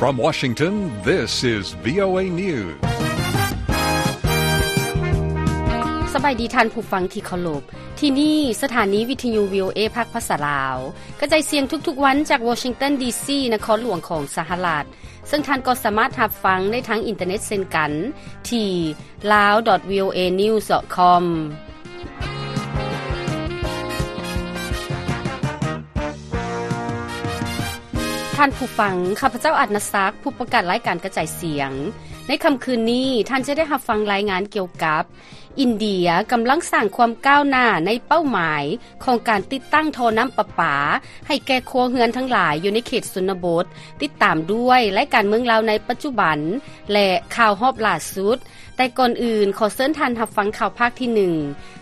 From Washington, this is VOA News. ສະບາຍດີທ່ານຜູ້ຟັງທີ່ເຄົາລົບ. ທີ່ນີ້ສະຖານີວິທະຍຸ VOA ພາກພາສາລາວ ກະຈາຍສຽງທຸກໆວັນຈາກ Washington ດີ.ຊີ ນະຄອນຫຼວງຂອງສະຫະລັດ, ເຊິ່ງທ່ານກໍສາມາດຮັບຟັງໄດ້ທາງອິນເຕີເນັດເຊັ່ນກັນ ທີ່ lawdotvoanews.com. ທ່ານຜູ້ຟັງ, ຂ້າພະເຈົ້າ ອາດນະສັກ, ຜູ້ປະກາດລາຍການກະຈາຍສຽງ. ໃນຄ່ຳຄືນນີ້, ທ່ານຈະໄດ້ຮັບຟັງລາຍງານກ່ຽວກັບ ອິນເດຍກຳລັງສ້າງຄວາມກ້າວໜ້າໃນເປົ້າໝາຍຂອງການຕິດຕັ້ງທໍ່ນ້ຳປະປາໃຫ້ແກ່ຄົວເຮືອນທັງຫຼາຍຢູ່ໃນເຂດຊົນນະບົດ, ຕິດຕາມດ້ວຍລາຍການເມືອງລາວໃນປັດຈຸບັນ ແລະ ຂ່າວຮອບລ່າສຸດ. ແຕ່ກ່ອນອື່ນ, ຂໍເຊີນທ່ານຮັບຟັງຂ່າວພາກທີໜຶ່ງ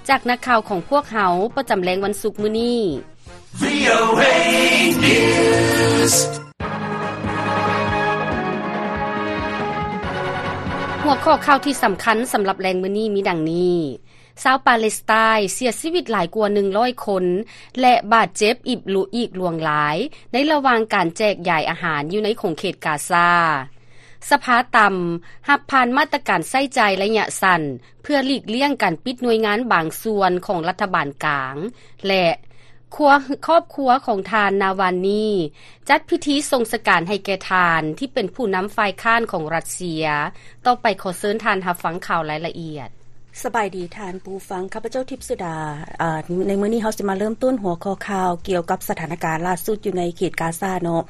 ຈາກນັກຂ່າວຂອງພວກເຮົາປະຈຳແລງວັນສຸກມື້ນີ້. VOA News. ຫົວຂໍ້ຂ່າວທີ່ສຳຄັນສຳລັບແລງມື້ນີ້ມີດັ່ງນີ້: ຊາວປາເລສໄຕນ໌ເສຍຊີວິດຫຼາຍກວ່າໜຶ່ງຮ້ອຍຄົນ ແລະ ບາດເຈັບອີກຫຼວງຫຼາຍ ໃນລະຫວ່າງການແຈກຢາຍອາຫານຢູ່ໃນຂົງເຂດກາຊາ. ສະພາຕ່ຳຮັບຜ່ານມາດຕະການໃຊ້ຈ່າຍໄລຍະສັ້ນ ເພື່ອຫຼີກລ່ຽງການປິດໜ່ວຍງານບາງສ່ວນຂອງລັດຖະບານກາງ ແລະ ຄົວ ຄອບຄົວຂອງທ່ານນາວານນີ ຈັດພິທີສົ່ງສະການໃຫ້ແກ່ທ່ານທີ່ເປັນຜູ້ນຳຝ່າຍຄ້ານຂອງຣັດເຊຍ. ຕໍ່ໄປຂໍເຊີນທ່ານຮັບຟັງຂ່າວລາຍລະອຽດ. ສະບາຍດີທ່ານຜູ້ຟັງ, ຂ້າພະເຈົ້າທິບສຸດາ. ອາ ໃນມື້ນີ້ເຮົາຊິມາເລີ່ມຕົ້ນຫົວຂໍ້ຂ່າວກ່ຽວກັບສະຖານະການລ່າສຸດຢູ່ໃນເຂດກາຊາເນາະ.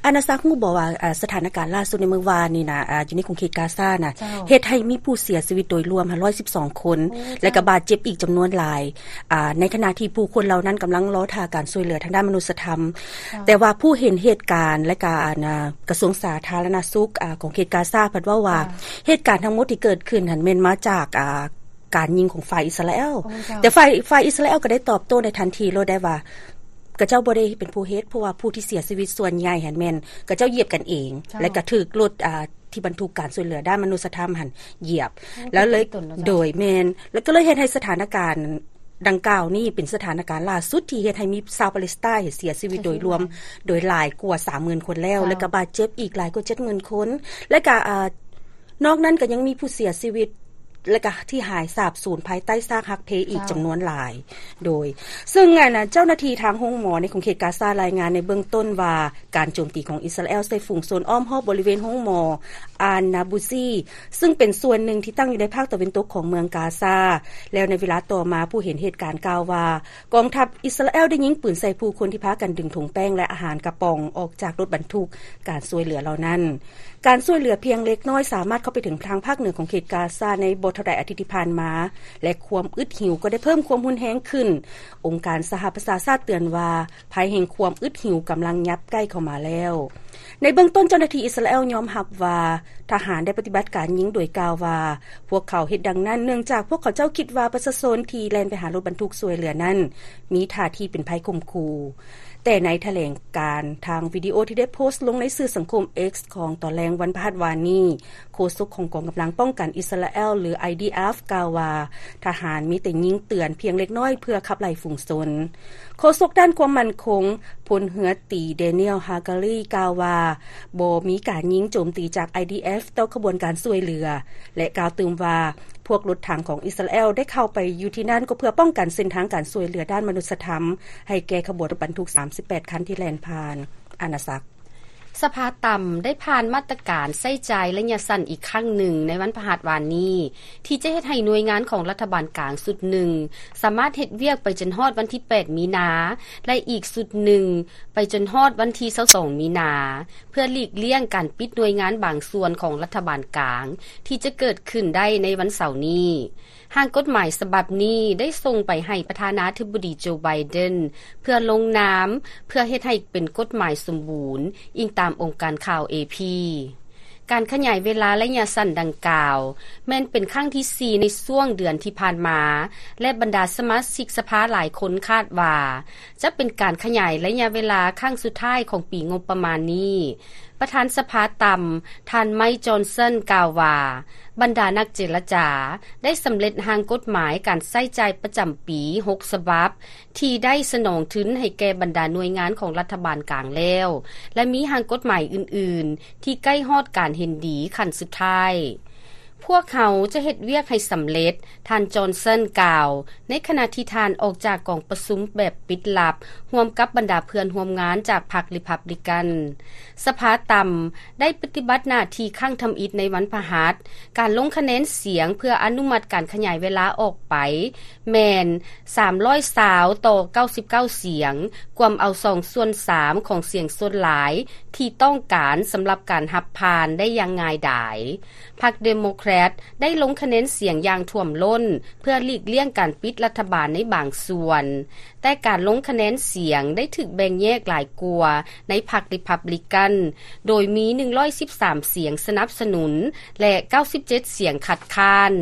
ອານາສັກຮູ້ບໍ່ວ່າ ອາ ສະຖານະການລ່າສຸດໃນມື້ວານນີ້ນະ ອາ ຢູ່ໃນຂົງເຂດກາຊານະ ເຮັດໃຫ້ມີຜູ້ເສຍຊີວິດໂດຍລວມຮ້ອຍສິບສອງຄົນ ແລະ ກະບາດເຈັບອີກຈຳນວນຫຼາຍ ອາ ໃນຂະນະທີ່ຜູ້ຄົນເຫຼົ່ານັ້ນກຳລັງລໍຖ້າການຊ່ວຍເຫຼືອທາງດ້ານມະນຸດສະທຳ. ແຕ່ວ່າຜູ້ເຫັນເຫດການ ແລະ ກະ ອາ ກະຊວງສາທາລະນະສຸກ ອາ ຂອງເຂດກາຊາ ພັດເວົ້າວ່າ ເຫດການທັງໝົດທີ່ເກີດຂຶ້ນຫັ້ນແມ່ນມາຈາກ ອາ ການຍິງຂອງຝ່າຍອິດສະຣາແອລ. ແຕ່ຝ່າຍ ຝ່າຍອິດສະຣາແອລກໍໄດ້ຕອບໂຕ້ໃນທັນທີໂລດໄດ້ວ່າ ຂະເຈົ້າບໍ່ໄດ້ເປັນຜູ້ເຮັດ, ເພາະວ່າຜູ້ທີ່ເສຍຊີວິດສ່ວນໃຫຍ່ຫັ້ນແມ່ນຂະເຈົ້າຢຽບກັນເອງ ແລະ ກະຖືກລົດ ອາ ທີ່ບັນທຸກການຊ່ວຍເຫຼືອດ້ານມະນຸດສະທຳຫັ້ນຢຽບ ແລ້ວເລີຍ ໂດຍ ແມ່ນ ແລ້ວກໍເລີຍເຮັດໃຫ້ສະຖານະການດັ່ງກ່າວນີ້ເປັນສະຖານະການລ່າສຸດທີ່ເຮັດໃຫ້ມີຊາວປາເລສໄຕນ໌ເສຍຊີວິດໂດຍລວມໂດຍຫຼາຍກວ່າສາມໝື່ນຄົນແລ້ວ ແລະ ກະບາດເຈັບອີກຫຼາຍກວ່າເຈັດໝື່ນຄົນ ແລະ ກະ ອາ ນອກນັ້ນກໍຍັງມີຜູ້ເສຍຊີວິດ ແລະກະທີ່ຫາຍສາບສູນພາຍໃຕ້ຊາກຫັກເພອີກຈຳນວນຫຼາຍ. ໂດຍ ເຊິ່ງອັນ ເຈົ້າໜ້າທີ່ທາງໂຮງໝໍໃນຂົງເຂດກາຊາລາຍງານໃນເບື້ອງຕົ້ນວ່າ ການໂຈມຕີຂອງອິດສະຣາແອລໃສ່ຝູງຊົນອ້ອມຮອບບໍລິເວນໂຮງໝໍອານນາບູຊີ ຊຶ່ງເປັນສ່ວນໜຶ່ງທີ່ຕັ້ງຢູ່ໃນພາກຕາເວັນຕົກຂອງເມືອງກາຊາ. ແລ້ວໃນເວລາຕໍ່ມາ ຜູ້ເຫັນເຫດການກ່າວວ່າ ກອງທັບອິດສະຣາແອລໄດ້ຍິງປືນໃສ່ຜູ້ຄົນທີ່ພາກັນດຶງຖົງແປ້ງ ແລະ ອາຫານກະປ໋ອງອອກຈາກລົດບັນທຸກການຊ່ວຍເຫຼືອເຫຼົ່ານັ້ນ. ການຊ່ວຍເຫຼືອພຽງເລັກນ້ອຍສາມາດເຂົ້າໄປເຖິງທາງພາກເໜືອຂອງເຂດກາຊາໃນບໍ່ເທົ່າໃດອາທິດທີ່ຜ່ານມາ ແລະ ຄວາມອຶດຫິວກໍໄດ້ເພີ່ມຄວາມຮຸນແຮງຂຶ້ນ. ອົງການສະຫະປະຊາຊາດເຕືອນວ່າ ໄພແຫ່ງຄວາມອຶດຫິວກຳລັງຫຍັບໃກ້ເຂົ້າມາແລ້ວ. ໃນເບື້ອງຕົ້ນເຈົ້າໜ້າທີ່ອິດສະຣາແອລຍອມຮັບວ່າ ທະຫານໄດ້ປະຕິບັດການຍິງ ໂດຍກ່າວວ່າ ພວກເຂົາເຮັດດັ່ງນັ້ນເນື່ອງຈາກພວກເຂົາເຈົ້າຄິດວ່າປະຊາຊົນທີ່ແລ່ນໄປຫາລົດບັນທຸກຊ່ວຍເຫຼືອນັ້ນ ມີທ່າທີເປັນໄພຂົ່ມຂູ່. ແຕ່ໃນຖະແຫຼງການທາງວິດີໂອທີ່ໄດ້ໂພສລົງໃນສື່ສັງຄົມ X ຂອງຕອນແລງວັນພະຫັດວານນີ້, ໂຄສົກຂອງກອງກຳລັງປ້ອງກັນອິດສະຣາແອລ ຫຼື IDF ກ່າວວ່າ ທະຫານມີແຕ່ຍິງເຕືອນພຽງເລັກນ້ອຍເພື່ອຂັບໄລ່ຝູງຊົນ. ໂຄສົກດ້ານຄວາມໝັ້ນຄົງ ພົນເຮືອຕີ Daniel Hagari ກ່າວວ່າ ບໍ່ມີການຍິງໂຈມຕີຈາກ IDF ຕໍ່ຂະບວນການຊ່ວຍເຫຼືອ ແລະ ກ່າວຕື່ມວ່າ ພວກລົດຖັງຂອງອິດສະຣາແອລໄດ້ເຂົ້າໄປຢູ່ທີ່ນັ້ນ ກໍເພື່ອປ້ອງກັນເສັ້ນທາງການຊ່ວຍເຫຼືອດ້ານມະນຸດສະທຳ ໃຫ້ແກ່ຂະບວນລົດບັນທຸກສາມສິບແປດຄັນທີ່ແລ່ນຜ່ານອານາຈັກ. ສະພາຕ່ຳໄດ້ຜ່ານມາດຕະການໃຊ້ຈ່າຍໄລຍະສັ້ນອີກຄັ້ງໜຶ່ງໃນວັນພະຫັດວານນີ້ ທີ່ຈະເຮັດໃຫ້ໜ່ວຍງານຂອງລັດຖະບານກາງຊຸດໜຶ່ງ ສາມາດເຮັດວຽກໄປຈົນຮອດວັນທີແປດມີນາ ແລະ ອີກຊຸດໜຶ່ງໄປຈົນຮອດວັນທີຊາວສອງມີນາ ເພື່ອຫຼີກລ່ຽງການປິດໜ່ວຍງານບາງສ່ວນຂອງລັດຖະບານກາງ ທີ່ຈະເກີດຂຶ້ນໄດ້ໃນວັນເສົານີ້. ຮ່າງກົດໝາຍສະບັບນີ້ໄດ້ສົ່ງໄປໃຫ້ປະທານາທິບໍດີ ໂຈ ໄບເດັນ ເພື່ອລົງນາມ ເພື່ອເຮັດໃຫ້ເປັນກົດໝາຍສົມບູນ, ອີງຕາມອົງການຂ່າວ ເອ ພີ ການຂະຫຍາຍເວລາໄລຍະສັ້ນດັ່ງກ່າວ ແມ່ນເປັນຄັ້ງທີສີ່ໃນຊ່ວງເດືອນທີ່ຜ່ານມາ ແລະ ບັນດາສະມາຊິກສະພາຫຼາຍຄົນຄາດວ່າ ຈະເປັນການຂະຫຍາຍໄລຍະເວລາຄັ້ງສຸດທ້າຍຂອງປີງົບປະມານນີ້. ປະທານສະພາຕ່ຳ ທ່ານ ໄມ ຈອນສັນ ກ່າວວ່າ ບັນດານັກເຈລະຈາໄດ້ສຳເລັດຮ່າງກົດໝາຍການໃຊ້ຈ່າຍປະຈຳປີຫົກສະບັບ ທີ່ໄດ້ສະໜອງທຶນໃຫ້ແກ່ບັນດາໜ່ວຍງານຂອງລັດຖະບານກາງແລ້ວ ແລະ ມີຮ່າງກົດໝາຍອື່ນໆ ທີ່ໃກ້ຮອດການເຫັນດີຂັ້ນສຸດທ້າຍ. ພວກເຮົາຈະເຮັດວຽກໃຫ້ສຳເລັດ, ທ່ານ ຈອນສັນ ກ່າວ ໃນຂະນະທີ່ທ່ານອອກຈາກກອງປະຊຸມແບບປິດລັບ ຮ່ວມກັບບັນດາເພື່ອນຮ່ວມງານຈາກພັກ Republican. ສະພາຕ່ຳໄດ້ປະຕິບັດໜ້າທີ່ຄັ້ງທຳອິດໃນວັນພະຫັດ. ການລົງຄະແນນສຽງເພື່ອອະນຸມັດການຂະຫຍາຍເວລາອອກໄປແມ່ນສາມຮ້ອຍຊາວຕໍ່ເກົ້າສິບເກົ້າສຽງ, ກວມເອົາສອງສ່ວນສາມຂອງສຽງສ່ວນຫຼາຍທີ່ຕ້ອງການສຳລັບການຮັບຜ່ານໄດ້ຢ່າງງ່າຍດາຍ. ພັກ Democrat ໄດ້ລົງຄະແນນສຽງຢ່າງຖ້ວມລົ້ນ ເພື່ອຫຼີກລ່ຽງການປິດລັດຖະບານໃນບາງສ່ວນ, ແຕ່ການລົງຄະແນນສຽງໄດ້ຖືກແບ່ງແຍກຫຼາຍກວ່າໃນພັກ Republican ໂດຍມີໜຶ່ງຮ້ອຍສິບສາມສຽງສະໜັບສະໜູນ ແລະ ເກົ້າສິບເຈັດສຽງຄັດຄ້ານ.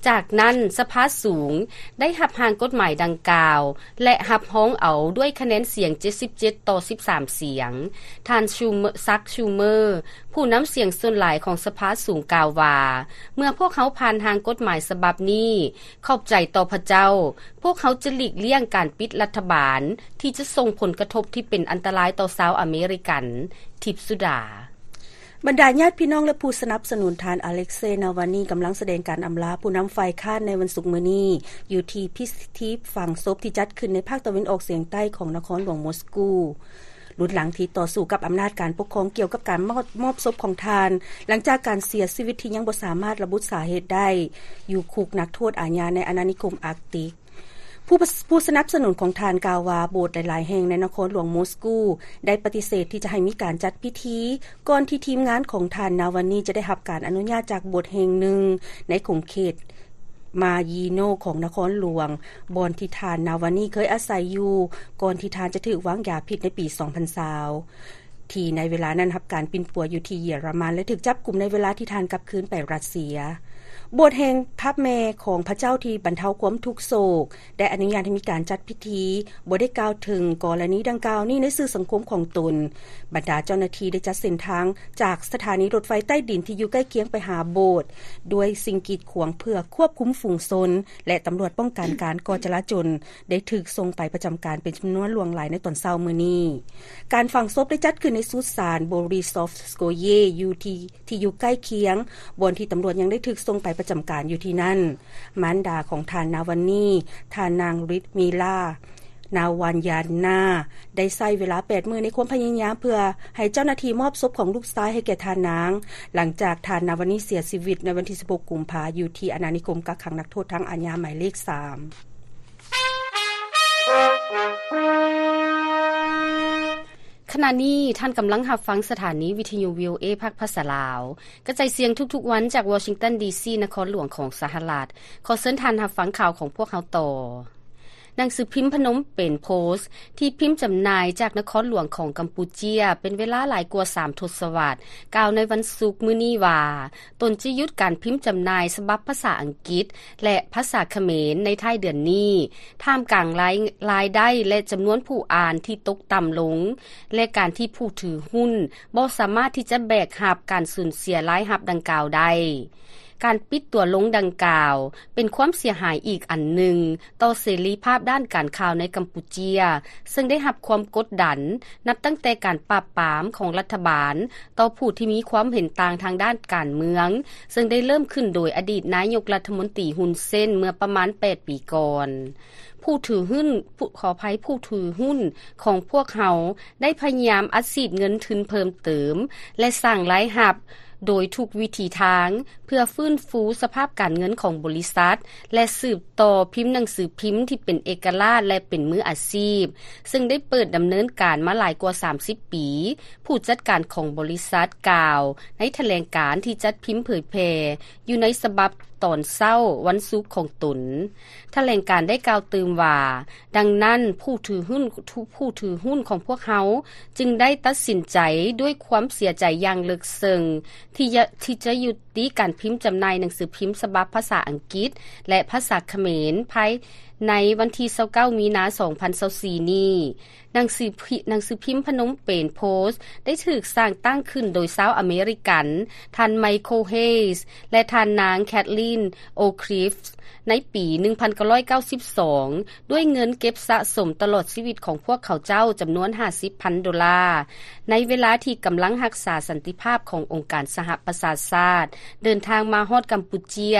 ຈາກນັ້ນ, ສະພາສູງໄດ້ຮັບຮ່າງກົດໝາຍດັ່ງກ່າວ ແລະ ຮັບຮອງເອົາດ້ວຍຄະແນນສຽງເຈັດສິບເຈັດຕໍ່ສິບສາມສຽງ. ທ່ານ Schumer ຊັກ Schumer ຜູ້ນຳສຽງສ່ວນຫຼາຍຂອງສະພາສູງກ່າວວ່າ, ເມື່ອພວກເຮົາຜ່ານຮ່າງກົດໝາຍສະບັບນີ້, ຂອບໃຈຕໍ່ພະເຈົ້າ, ພວກເຮົາຈະຫຼີກລ່ຽງການປິດລັດຖະບານທີ່ຈະສົ່ງຜົນກະທົບທີ່ເປັນອັນຕະລາຍຕໍ່ຊາວອາເມລິກັນ. ທິບສຸດາ. ບັນດາຍາດພີ່ນ້ອງ ແລະ ຜູ້ສະໜັບສະໜູນທ່ານ ອາເລັກເຊ ນາວານີ ກຳລັງສະແດງການອຳລາຜູ້ນຳຝ່າຍຄ້ານໃນວັນສຸກມື້ນີ້ ຢູ່ທີ່ພິທີຝັງສົບທີ່ຈັດຂຶ້ນໃນພາກຕາເວັນອອກສຽງໃຕ້ຂອງນະຄອນຫຼວງມົສກູ. ລຸນຫຼັງທີ່ຕໍ່ສູ້ກັບອຳນາດການປົກຄອງກ່ຽວກັບການມອບ ມອບສົບຂອງທ່ານ, ຫຼັງຈາກການເສຍຊີວິດທີ່ຍັງບໍ່ສາມາດລະບຸສາເຫດໄດ້ ຢູ່ຄຸກນັກໂທດອາຍາໃນອານານິຄົມອາກຕິກ. ຜູ້ ຜູ້ສະໜັບສະໜູນຂອງທ່ານກ່າວວ່າ ໂບດຫຼາຍໆແຫ່ງໃນນະຄອນຫຼວງມົສກູໄດ້ປະຕິເສດທີ່ຈະໃຫ້ມີການຈັດພິທີກ່ອນທີ່ທີມງານຂອງທ່ານນາວານີຈະໄດ້ຮັບການອະນຸຍາດຈາກໂບດແຫ່ງໜຶ່ງໃນຂົງເຂດມາຢີໂນຂອງນະຄອນຫຼວງ ບ່ອນທີ່ທ່ານນາວານີເຄີຍອາໄສຢູ່ ກ່ອນທີ່ທ່ານຈະຖືກວາງຢາພິດໃນປີສອງພັນຊາວ. ທີ່ໃນເວລານັ້ນຮັບການປິ່ນປົວຢູ່ທີ່ເຢຍລະມັນ ແລະ ຖືກຈັບກຸມໃນເວລາທີ່ທ່ານກັບຄືນໄປຣັດເຊຍ. ໂບດແຫ່ງພະແມ່ຂອງພະເຈົ້າທີ່ບັນເທົາຄວາມທຸກໂສກ ໄດ້ອະນຸຍາດໃຫ້ມີການຈັດພິທີ, ບໍ່ໄດ້ກ່າວເຖິງກໍລະນີດັ່ງກ່າວນີ້ໃນສື່ສັງຄົມຂອງຕົນ. ບັນດາເຈົ້າໜ້າທີ່ໄດ້ຈັດເສັ້ນທາງຈາກສະຖານີລົດໄຟໃຕ້ດິນທີ່ຢູ່ໃກ້ຄຽງໄປຫາໂບດ ດ້ວຍສິ່ງກີດຂວາງເພື່ອຄວບຄຸມຝູງຊົນ ແລະ ຕຳຫຼວດປ້ອງກັນການກໍ່ຈະລາຈົນ ໄດ້ຖືກສົ່ງໄປປະຈຳການເປັນຈຳນວນຫຼວງຫຼາຍໃນຕອນເຊົ້າມື້ນີ້. ການຝັງສົບໄດ້ຈັດຂຶ້ນໃນສຸດສານ Borisov Skoye ຢູ່ທີ່ ທີ່ຢູ່ໃກ້ຄຽງ ບ່ອນທີ່ຕຳຫຼວດຍັງໄດ້ຖືກສົ່ງໄປປະຈຳການຢູ່ທີ່ນັ້ນ. ມານດາຂອງທ່ານນາວັນນີ, ທ່ານນາງ Lyudmila Navalnaya ໄດ້ໃຊ້ເວລາແປດມື້ໃນຄວາມພະຍາຍາມເພື່ອໃຫ້ເຈົ້າໜ້າທີ່ມອບສົບຂອງລູກຊາຍໃຫ້ແກ່ທ່ານນາງ, ຫຼັງຈາກທ່ານນາວັນນີເສຍຊີວິດໃນວັນທີສິບຫົກ ກຸມພາ ຢູ່ທີ່ອານານິຄົມກັກຂັງນັກໂທດທາງອາຍາໝາຍເລກສາມ. ຂະນະນີ້ທ່ານກຳລັງຮັບຟັງສະຖານີວິທະຍຸ ວີໂອເອ ພາກພາສາລາວ ກະຈາຍສຽງທຸກໆວັນຈາກວໍຊິງຕັນ ດີຊີ ນະຄອນຫຼວງຂອງສະຫະລັດ. ຂໍເຊີນທ່ານຮັບຟັງຂ່າວຂອງພວກເຮົາຕໍ່. ໜັງສືພິມພະນົມເປັນໂພສ ທີ່ພິມຈຳໜ່າຍຈາກນະຄອນຫຼວງຂອງກຳປູເຈຍເປັນເວລາຫຼາຍກວ່າສາມທົດສະວັດ ກ່າວໃນວັນສຸກມື້ນີ້ວ່າ ຕົນຈະຢຸດການພິມຈຳໜ່າຍສະບັບພາສາອັງກິດ ແລະ ພາສາຂະເໝນໃນທ້າຍເດືອນນີ້ ທ່າມກາງລາຍ ລາຍໄດ້ ແລະ ຈຳນວນຜູ້ອ່ານທີ່ຕົກຕ່ຳລົງ ແລະ ການທີ່ຜູ້ຖືຫຸ້ນບໍ່ສາມາດທີ່ຈະແບກຮັບການສູນເສຍລາຍຮັບດັ່ງກ່າວໄດ້. ການປິດຕົວລົງດັ່ງກ່າວ ເປັນຄວາມເສຍຫາຍອີກອັນໜຶ່ງຕໍ່ເສລີພາບດ້ານການຂ່າວໃນກຳປູເຈຍ, ເຊິ່ງໄດ້ຮັບຄວາມກົດດັນນັບຕັ້ງແຕ່ການປາບປາມຂອງລັດຖະບານຕໍ່ຜູ້ທີ່ມີຄວາມເຫັນຕ່າງທາງດ້ານການເມືອງ, ເຊິ່ງໄດ້ເລີ່ມຂຶ້ນໂດຍອະດີດນາຍົກລັດຖະມົນຕີ ຮຸນເຊນ ເມື່ອປະມານແປດປີກ່ອນ. ຜູ້ຖືຫຸ້ນ ຜູ້ ຂໍອະໄພ, ຜູ້ຖືຫຸ້ນຂອງພວກເຮົາໄດ້ພະຍາຍາມອັດສີດເງິນທຶນເພີ່ມເຕີມ ແລະ ສ້າງລາຍຮັບໂດຍທຸກວິທີທາງ ເພື່ອຟື້ນຟູສະພາບການເງິນຂອງບໍລິສັດ ແລະ ສືບຕໍ່ພິມໜັງສືພິມທີ່ເປັນເອກະລາດ ແລະ ເປັນມືອາຊີບ, ເຊິ່ງໄດ້ເປີດດຳເນີນການມາຫຼາຍກວ່າສາມສິບປີ, ຜູ້ຈັດການຂອງບໍລິສັດກ່າວໃນຖະແຫຼງການທີ່ຈັດພິມເຜີຍແຜ່ຢູ່ໃນສະບັບຕອນເຊົ້າວັນສຸກຂອງຕົນ. ຖະແຫຼງການໄດ້ກ່າວຕື່ມວ່າ, ດັ່ງນັ້ນ, ຜູ້ຖືຫຸ້ນ ຜູ້ຖືຫຸ້ນຂອງພວກເຮົາຈຶ່ງໄດ້ຕັດສິນໃຈດ້ວຍຄວາມເສຍໃຈຢ່າງເລິກເຊິ່ງ ທີ່ຈະ ທີ່ຈະຍຸຕິການພິມຈຳໜ່າຍໜັງສືພິມສະບັບພາສາອັງກິດ ແລະ ພາສາຂະເໝນ ພາຍໃນວັນທີຊາວເກົ້າ ມີນາ ສອງພັນຊາວສີ່ນີ້. ໜັງສືພິ ໜັງສືພິມພະນົມເປນໂພສ ໄດ້ຖືກສ້າງຕັ້ງຂຶ້ນໂດຍຊາວອາເມລິກັນ ທ່ານ ໄມເຄິນ ເຮສ ແລະ ທ່ານນາງ ແຄທລີນ ໂອຄຣິຟ ໃນປີໜຶ່ງພັນເກົ້າຮ້ອຍເກົ້າສິບສອງ ດ້ວຍເງິນເກັບສະສົມຕະຫຼອດຊີວິດຂອງພວກເຂົາເຈົ້າຈຳນວນຫ້າສິບພັນໂດລາ ໃນເວລາທີ່ກຳລັງຮັກສາສັນຕິພາບຂອງອົງການສະຫະປະຊາຊາດ ເດີນທາງມາຮອດກຳປູເຈຍ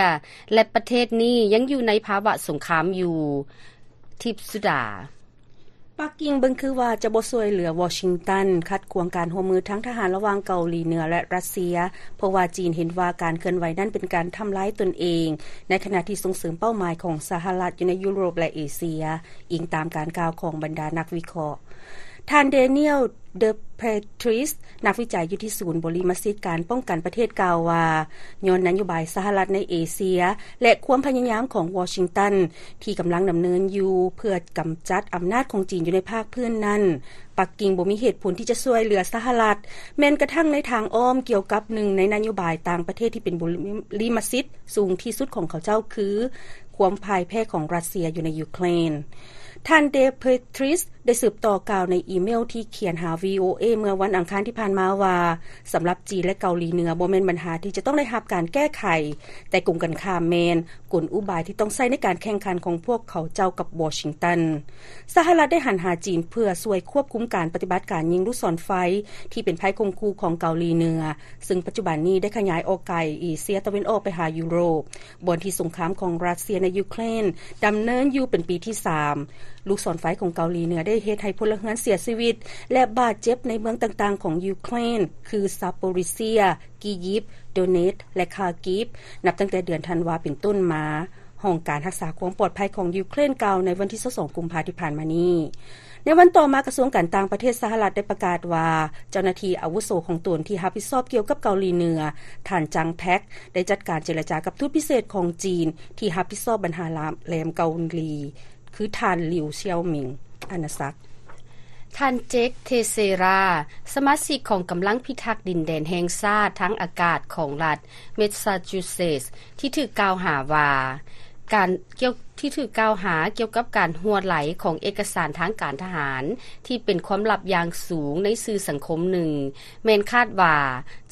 ແລະ ປະເທດນີ້ຍັງຢູ່ໃນພາວະສົງຄາມຢູ່. ທິບສຸດາ. ປັກກິ່ງເບິ່ງຄືວ່າຈະບໍ່ຊ່ວຍເຫຼືອວໍຊິງຕັນ ຂັດຂວາງການຮ່ວມມືທາງທະຫານລະຫວ່າງເກົາຫຼີເໜືອ ແລະ ຣັດເຊຍ ເພາະວ່າຈີນເຫັນວ່າການເຄື່ອນໄຫວນັ້ນເປັນການທຳລາຍຕົນເອງ ໃນຂະນະທີ່ສົ່ງເສີມເປົ້າໝາຍຂອງສະຫະລັດຢູ່ໃນຢູໂຣບ ແລະ ເອເຊຍ, ອີງຕາມການກ່າວຂອງບັນດານັກວິເຄາະ. ທ່ານ Daniel Depretis ນັກວິໄຈຢູ່ທີ່ສູນບໍລິມະສິດການປ້ອງກັນປະເທດ ກ່າວວ່າ ຍ້ອນນະໂຍບາຍສະຫະລັດໃນເອເຊຍ ແລະ ຄວາມພະຍາຍາມຂອງວໍຊິງຕັນ ທີ່ກຳລັງດຳເນີນຢູ່ເພື່ອກຳຈັດອຳນາດຂອງຈີນຢູ່ໃນພາກພື້ນນັ້ນ, ປັກກິ່ງບໍ່ມີເຫດຜົນທີ່ຈະຊ່ວຍເຫຼືອສະຫະລັດ ແມ່ນກະທັ່ງໃນທາງອ້ອມ ກ່ຽວກັບໜຶ່ງໃນນະໂຍບາຍຕ່າງປະເທດທີ່ເປັນບຸລິມະສິດສູງທີ່ສຸດຂອງເຂົາເຈົ້າ ຄື ຄວາມພ່າຍແພ້ຂອງຣັດເຊຍຢູ່ໃນຢູເຄຣນ. ທ່ານ Depretis ໄດ້ສືບຕໍ່ກ່າວໃນອີເມວທີ່ຂຽນຫາ VOA ເມື່ອວັນອັງຄານທີ່ຜ່ານມາວ່າ, ສຳລັບຈີນ ແລະ ເກົາຫຼີເໜືອ ບໍ່ແມ່ນບັນຫາທີ່ຈະຕ້ອງໄດ້ຮັບການແກ້ໄຂ, ແຕ່ກົງກັນຂ້າມແມ່ນ ກົນອຸບາຍທີ່ຕ້ອງໃຊ້ໃນການແຂ່ງຂັນຂອງພວກເຂົາເຈົ້າກັບວໍຊິງຕັນ. ສະຫະລັດໄດ້ຫັນຫາຈີນເພື່ອຊ່ວຍຄວບຄຸມການປະຕິບັດການຍິງລູກສອນໄຟທີ່ເປັນໄພຂົ່ມຂູ່ຂອງເກົາຫຼີເໜືອ, ເຊິ່ງປັດຈຸບັນນີ້ໄດ້ຂະຫຍາຍອອກໄກເອເຊຍຕາເວັນອອກໄປຫາຢູໂຣບ, ບ່ອນທີ່ສົງຄາມຂອງຣັດເຊຍໃນຢູເຄຣນດຳເນີນຢູ່ເປັນປີທີສາມ. ລູກສອນໄຟຂອງເກົາຫຼີເໜືອໄດ້ເຮັດໃຫ້ພົນລະເຮືອນເສຍຊີວິດ ແລະ ບາດເຈັບໃນເມືອງຕ່າງໆຂອງຢູເຄຣນ ຄື ຊາໂປຣິເຊຍ, ກີຢິບ, ໂດເນັດ ແລະ ຄາກີບ ນັບຕັ້ງແຕ່ເດືອນທັນວາເປັນຕົ້ນມາ, ຫ້ອງການຮັກສາຄວາມປອດໄພຂອງຢູເຄຣນກ່າວໃນວັນທີຊາວສອງ ກຸມພາທີ່ຜ່ານມານີ້. ໃນວັນຕໍ່ມາ, ກະຊວງການຕ່າງປະເທດສະຫະລັດໄດ້ປະກາດວ່າ ເຈົ້າໜ້າທີ່ອາວຸໂສຂອງຕົນທີ່ຮັບຜິດຊອບກ່ຽວກັບເກົາຫຼີເໜືອ, ທ່ານ ຈັງ ແທັກ ໄດ້ຈັດການເຈລະຈາກັບທູດພິເສດຂອງຈີນທີ່ຮັບຜິດຊອບບັນຫາລາມແຫຼມເກົາຫຼີ ຄືທ່ານ ລິວ ຊຽວໝິງ. ອານາສັກ. ທ່ານ ເຈັກ ເທເຊຣາ ສະມາຊິກຂອງກຳລັງພິທັກດິນແດນແຫ່ງຊາດທາງອາກາດຂອງລັດ ແມສຊາຈູເຊັດ ທີ່ຖືກກ່າວຫາວ່າ ການ ກ່ຽວ ທີ່ຖືກກ່າວຫາກ່ຽວກັບການຮົ່ວໄຫຼຂອງເອກະສານທາງການທະຫານທີ່ເປັນຄວາມລັບຢ່າງສູງໃນສື່ສັງຄົມໜຶ່ງ ແມ່ນຄາດວ່າ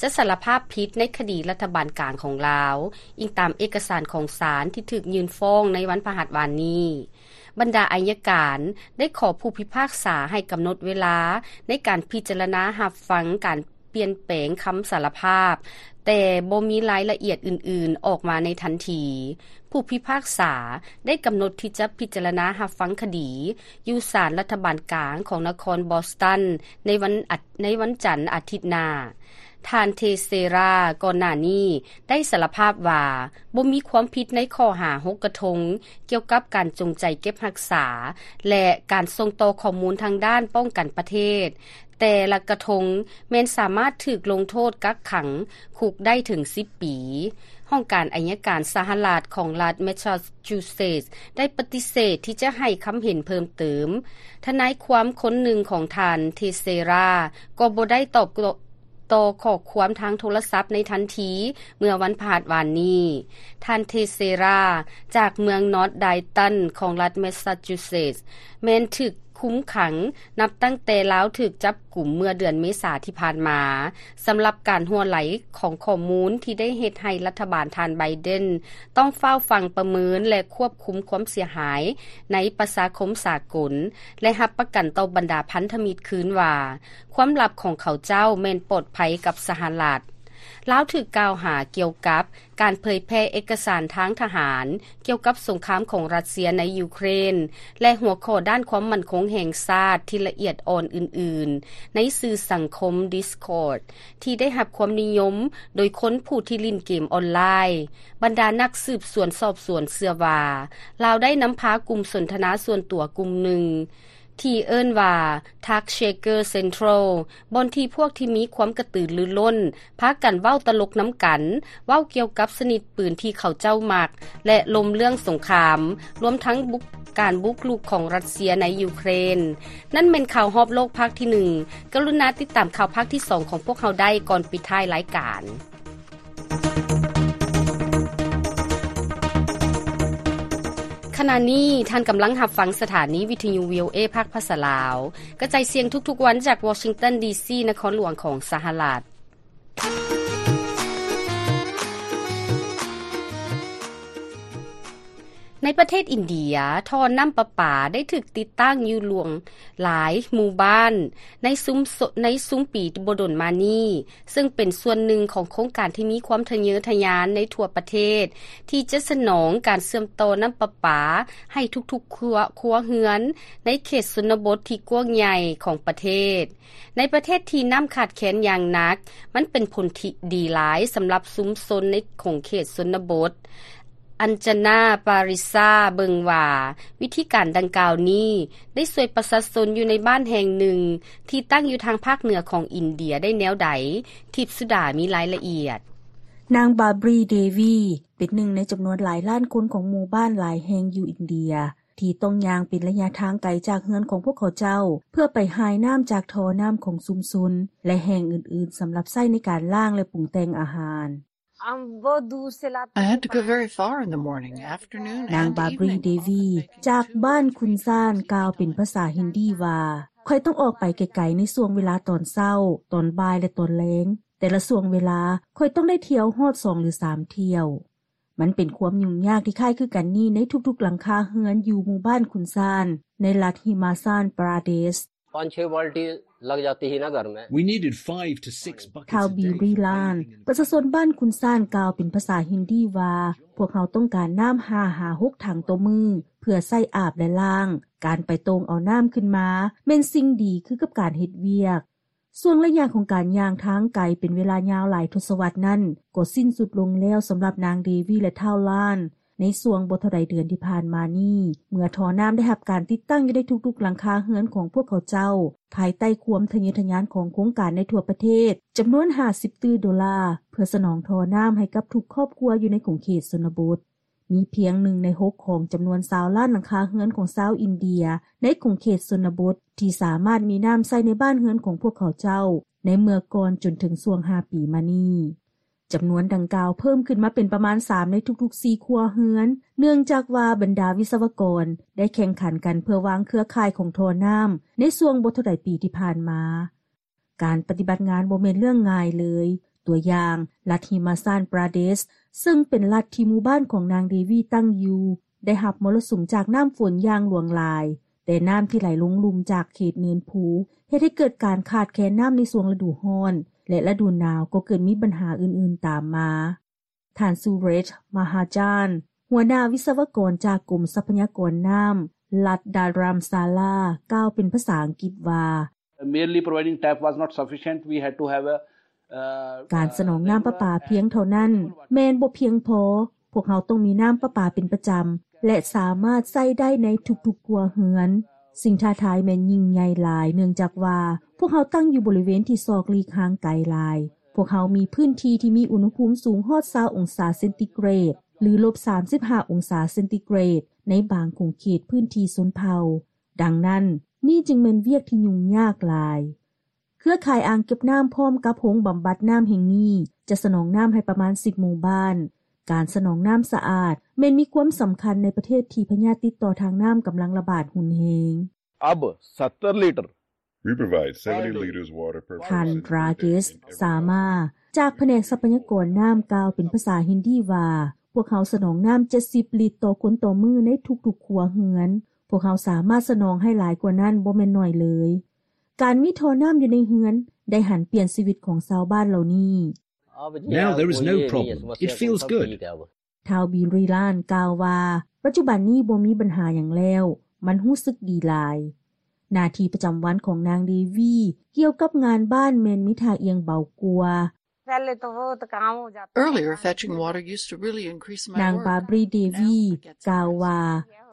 ຈະສາລະພາບຜິດໃນຄະດີລັດຖະບານກາງຂອງລາວ, ອີງຕາມເອກະສານຂອງສານທີ່ຖືກຍື່ນຟ້ອງໃນວັນພະຫັດວານນີ້. ບັນດາໄອຍະການໄດ້ຂໍຜູ້ພິພາກສາໃຫ້ກຳນົດເວລາໃນການພິຈາລະນາຮັບຟັງການປ່ຽນແປງຄຳສາລະພາບ, ແຕ່ບໍ່ມີລາຍລະອຽດອື່ນໆອອກມາໃນທັນທີ. ຜູ້ພິພາກສາໄດ້ກຳນົດທີ່ຈະພິຈາລະນາຮັບຟັງຄະດີຢູ່ສານລັດຖະບານກາງຂອງນະຄອນບອສຕັນໃນວັນອາ ໃນວັນຈັນອາທິດໜ້າ. ທ່ານ ເທເຊຣາ ກ່ອນໜ້ານີ້ໄດ້ສາລະພາບວ່າບໍ່ມີຄວາມຜິດໃນຂໍ້ຫາຫົກກະທົງ ກ່ຽວກັບການຈົງໃຈເກັບຮັກສາ ແລະ ການສົ່ງຕໍ່ຂໍ້ມູນທາງດ້ານປ້ອງກັນປະເທດ. ແຕ່ລະກະທົງແມ່ນສາມາດຖືກລົງໂທດກັກຂັງຄຸກໄດ້ເຖິງສິບປີ. ຫ້ອງການໄອຍະການສະຫະລັດຂອງລັດແມສຊາຈູເຊັດ ໄດ້ປະຕິເສດທີ່ຈະໃຫ້ຄຳເຫັນເພີ່ມເຕີມ. ທະນາຍຄວາມຄົນໜຶ່ງຂອງທ່ານ ເທເຊຣາ ກໍບໍ່ໄດ້ຕອບ ຕໍ່ຂໍ້ຄວາມທາງໂທລະສັບໃນທັນທີເມື່ອວັນພະຫັດວານນີ້. ທ່ານ ເທເຊຣາ ຈາກເມືອງນອດໄດຕັນຂອງລັດແມສຊາຈູເຊັດ ແມ່ນຖືກຄຸມຂັງນັບຕັ້ງແຕ່ລາວຖືກຈັບກຸມເມື່ອເດືອນເມສາທີ່ຜ່ານມາ ສຳລັບການຮົ່ວໄຫຼຂອງຂໍ້ມູນທີ່ໄດ້ເຮັດໃຫ້ລັດຖະບານທ່ານໄບເດັນຕ້ອງຟ້າວຟັງປະເມີນ ແລະ ຄວບຄຸມຄວາມເສຍຫາຍໃນປະຊາຄົມສາກົນ ແລະ ຮັບປະກັນຕໍ່ບັນດາພັນທະມິດຄືນວ່າ ຄວາມລັບຂອງເຂົາເຈົ້າແມ່ນປອດໄພກັບສະຫະລັດ. ລາວຖືກກ່າວຫາກ່ຽວກັບການເຜີຍແຜ່ເອກະສານທາງທະຫານກ່ຽວກັບສົງຄາມຂອງຣັດເຊຍໃນຢູເຄຣນ ແລະ ຫົວຂໍ້ດ້ານຄວາມໝັ້ນຄົງແຫ່ງຊາດທີ່ລະອຽດອ່ອນອື່ນໆ ໃນສື່ສັງຄົມ Discord ທີ່ໄດ້ຮັບຄວາມນິຍົມໂດຍຄົນຜູ້ທີ່ຫຼິ້ນເກມອອນລາຍ. ບັນດານັກສືບສວນສອບສວນເຊື່ອວ່າ ລາວໄດ້ນຳພາກຸ່ມສົນທະນາສ່ວນຕົວກຸ່ມໜຶ່ງ ທີ່ເອີ້ນວ່າ Tuck Shaker Central ບ່ອນທີ່ພວກທີ່ມີຄວາມກະຕືລືລົ້ນພາກັນເວົ້າຕະຫຼົກນຳກັນ, ເວົ້າກ່ຽວກັບຊະນິດປືນທີ່ເຂົາເຈົ້າມັກ ແລະ ລົມເລື່ອງສົງຄາມ, ລວມທັງບຸກ ການບຸກລຸກຂອງຣັດເຊຍໃນຢູເຄຣນ. ນັ້ນແມ່ນຂ່າວຮອບໂລກພາກທີໜຶ່ງ. ກະລຸນາຕິດຕາມຂ່າວພາກທີສອງຂອງພວກເຮົາໄດ້ກ່ອນປິດທ້າຍລາຍການ. ຂະນະນີ້ທ່ານກຳລັງຮັບຟັງສະຖານີວິທະຍຸ ວີໂອເອ ພາກພາສາລາວ ກະຈາຍສຽງທຸກໆວັນຈາກວໍຊິງຕັນ ດີຊີ ນະຄອນຫຼວງຂອງສະຫະລັດ. ໃນປະເທດອິນເດຍ, ທໍ່ນ້ຳປະປາໄດ້ຖືກຕິດຕັ້ງຢູ່ຫຼວງຫຼາຍໝູ່ບ້ານໃນຊຸມ ໃນຊຸມປີບໍ່ດົນມານີ້, ເຊິ່ງເປັນສ່ວນໜຶ່ງຂອງໂຄງການທີ່ມີຄວາມທະເຍີທະຍານໃນທົ່ວປະເທດ ທີ່ຈະສະໜອງການເຊື່ອມຕໍ່ນ້ຳປະປາໃຫ້ທຸກໆຄົວ ຄົວເຮືອນໃນເຂດຊົນນະບົດທີ່ກວ້າງໃຫຍ່ຂອງປະເທດ. ໃນປະເທດທີ່ນ້ຳຂາດແຄນຢ່າງໜັກ, ມັນເປັນຜົນທີ່ດີຫຼາຍສຳລັບຊຸມຊົນໃນຂົງເຂດຊົນນະບົດ. ອັນຈານາ ປາຣິຊາ ເບິ່ງວ່າ ວິທີການດັ່ງກ່າວນີ້ໄດ້ຊ່ວຍປະຊາຊົນຢູ່ໃນບ້ານແຫ່ງໜຶ່ງທີ່ຕັ້ງຢູ່ທາງພາກເໜືອຂອງອິນເດຍໄດ້ແນວໃດ? ທິບສຸດາມີລາຍລະອຽດ. ນາງ ບາບຣີ ເດວີ ເປັນໜຶ່ງໃນຈຳນວນຫຼາຍລ້ານຄົນຂອງໝູ່ບ້ານຫຼາຍແຫ່ງຢູ່ອິນເດຍ ທີ່ຕ້ອງຍ່າງເປັນໄລຍະທາງໄກຈາກເຮືອນຂອງພວກເຂົາເຈົ້າ ເພື່ອໄປຫາຍນ້ຳຈາກທໍ່ນ້ຳຂອງຊຸມຊົນ ແລະ ແຫ່ງອື່ນໆ ສຳລັບໃຊ້ໃນການລ້າງ ແລະ ປຸງແຕ່ງອາຫານ. I had to go very far in the morning, afternoon ນາງ and ບາບຣີ evening ເດວີ ຈາກບ້ານຄຸນຊານ ກ່າວເປັນພາສາຮິນດີວ່າ, ຂ້ອຍຕ້ອງອອກໄປໄກໆໃນຊ່ວງເວລາຕອນເຊົ້າ, ຕອນບ່າຍ ແລະ ຕອນແລງ. ແຕ່ລະຊ່ວງເວລາ ຂ້ອຍຕ້ອງໄດ້ທ່ຽວຮອດສອງຫຼືສາມທ່ຽວ. ມັນເປັນຄວາມຫຍຸ້ງຍາກທີ່ຄ້າຍຄືກັນນີ້ໃນທຸກໆຫຼັງຄາເຮືອນຢູ່ໝູ່ບ້ານຄຸນຊານ ໃນລັດຮິມາຊານປຣາເດຊ. पाँच छह बाल्टी लग जाती ही ना घर में। We needed five to six buckets a day for bathing in the ທ້າວ ບິລຣີ ລານ ປະຊາຊົນບ້ານຄຸນຊານ ກ່າວເປັນພາສາຮິນດີວ່າ, ພວກເຮົາຕ້ອງການນ້ຳຫ້າຫາຫົກຖັງຕໍ່ມື້ ເພື່ອໃຊ້ອາບ ແລະ ລ້າງ. ການໄປໂຕ່ງເອົານ້ຳຂຶ້ນມາ ແມ່ນສິ່ງດີຄືກັບການເຮັດວຽກ. ຊ່ວງໄລຍະຂອງການຍ່າງທາງໄກເປັນເວລາຍາວຫຼາຍທົດສະວັດນັ້ນ ກໍສິ້ນສຸດລົງແລ້ວສຳລັບນາງ ເດວີ ແລະ ທ້າວ ລານ ໃນຊ່ວງບໍ່ເທົ່າໃດເດືອນທີ່ຜ່ານມານີ້, ເມື່ອທໍ່ນ້ຳໄດ້ຮັບການຕິດຕັ້ງຢູ່ໃນທຸກໆຫຼັງຄາເຮືອນຂອງພວກເຂົາເຈົ້າ, ພາຍໃຕ້ຄວາມທະເຍີທະຍານຂອງໂຄງການໃນທົ່ວປະເທດ ຈຳນວນຫ້າສິບຕື້ໂດລາ ເພື່ອສະໜອງທໍ່ນ້ຳໃຫ້ກັບທຸກຄອບຄົວຢູ່ໃນຂົງເຂດຊົນນະບົດ. ມີພຽງໜຶ່ງໃນຫົກຂອງຈຳນວນຊາວລ້ານຫຼັງຄາເຮືອນຂອງຊາວອິນເດຍໃນຂົງເຂດຊົນນະບົດ ທີ່ສາມາດມີນ້ຳໃຊ້ໃນບ້ານເຮືອນຂອງພວກເຂົາເຈົ້າ ໃນເມື່ອກ່ອນຈົນເຖິງຊ່ວງຫ້າປີມານີ້. ຈຳນວນດັ່ງກ່າວເພີ່ມຂຶ້ນມາເປັນປະມານສາມໃນທຸກໆສີ່ຄົວເຮືອນ, ເນື່ອງຈາກວ່າບັນດາວິສະວະກອນໄດ້ແຂ່ງຂັນກັນເພື່ອວາງເຄືອຂ່າຍຂອງທໍ່ນ້ຳໃນຊ່ວງບໍ່ເທົ່າໃດປີທີ່ຜ່ານມາ. ການປະຕິບັດງານບໍ່ແມ່ນເລື່ອງງ່າຍເລີຍ. ຕົວຢ່າງ, ລັດຮິມາຊານປຣາເດຊ ເຊິ່ງເປັນລັດທີ່ໝູ່ບ້ານຂອງນາງ ເດວີ ຕັ້ງຢູ່ ໄດ້ຮັບມໍລະສຸມຈາກນ້ຳຝົນຢ່າງຫຼວງຫຼາຍ, ແຕ່ນ້ຳທີ່ໄຫຼລົງລຸ່ມຈາກເຂດເນີນພູ ເຮັດໃຫ້ເກີດການຂາດແຄນນ້ຳໃນຊ່ວງລະດູຮ້ອນ ແລະ ລະດູໜາວກໍເກີດມີບັນຫາອື່ນໆຕາມມາ. ທ່ານ ຊູເຣຊ ມະຫາຈານ ຫົວໜ້າວິສະວະກອນຈາກກົມຊັບພະຍາກອນນ້ຳ ລັດດາຣາມຊາລາ ກ່າວເປັນພາສາອັງກິດວ່າ, Merely providing tap was not sufficient. We had to have a, uh, ການສະໜອງນ້ຳປະປາພຽງເທົ່ານັ້ນແມ່ນບໍ່ພຽງພໍ. ພວກເຮົາຕ້ອງມີນ້ຳປະປາເປັນປະຈຳ ແລະ ສາມາດໃຊ້ໄດ້ໃນທຸກໆຄົວເຮືອນ. ສິ່ງທ້າທາຍແມ່ນຍິ່ງໃຫຍ່ຫຼາຍ ເນື່ອງຈາກວ່າພວກເຮົາຕັ້ງຢູ່ບໍລິເວນທີ່ສອກຫຼີກຫ່າງໄກຫຼາຍ. ພວກເຮົາມີພື້ນທີ່ທີ່ມີອຸນຫະພູມສູງຮອດຊາວອົງສາເຊັນຕີເກຣດ ຫຼື ລົບສາມສິບຫ້າອົງສາເຊັນຕີເກຣດ ໃນບາງຂົງເຂດພື້ນທີ່ຊົນເຜົ່າ. ດັ່ງນັ້ນ, ນີ້ຈຶ່ງແມ່ນວຽກທີ່ຫຍຸ້ງຍາກຫຼາຍ. ເຄືອຂ່າຍອ່າງເກັບນ້ຳພ້ອມກັບໂຮງບຳບັດນ້ຳແຫ່ງນີ້ ຈະສະໜອງນ້ຳໃຫ້ປະມານສິບໝູ່ບ້ານ. ການສະໜອງນ້ຳສະອາດແມ່ນມີຄວາມສຳຄັນໃນປະເທດທີ່ພະຍາດຕິດຕໍ່ທາງນ້ຳກຳລັງລະບາດຮຸນແຮງ. अब सत्तर litre We provide seventy liters water per ທ່ານ person ຣາເກສ ສາມາ ຈາກພະແນກຊັບພະຍາກອນນ້ຳ ກ່າວເປັນພາສາຮິນດີວ່າ, ພວກເຮົາສະໜອງນ້ຳເຈັດສິບລິດຕໍ່ຄົນຕໍ່ມື້ໃນທຸກໆຄົວເຮືອນ. ພວກເຮົາສາມາດສະໜອງໃຫ້ຫຼາຍກວ່ານັ້ນບໍ່ແມ່ນໜ້ອຍເລີຍ. ການມີທໍ່ນ້ຳຢູ່ໃນເຮືອນໄດ້ຫັນປ່ຽນຊີວິດຂອງຊາວບ້ານເຫຼົ່ານີ້. Now there is no problem. It feels good. ທ້າວ ບິລຣີ ລານ ກ່າວວ່າ, ປັດຈຸບັນນີ້ບໍ່ມີບັນຫາຫຍັງແລ້ວ, ມັນຮູ້ສຶກດີຫຼາຍ. ໜ້າທີ່ປະຈຳວັນຂອງນາງ ເດວີ ກ່ຽວກັບງານບ້ານແມ່ນມີທ່າອ່ຽງເບົາກວ່າ. Earlier, fetching water used to really increase my work. ນາງ ບາບຣີ ເດວີ ກ່າວວ່າ,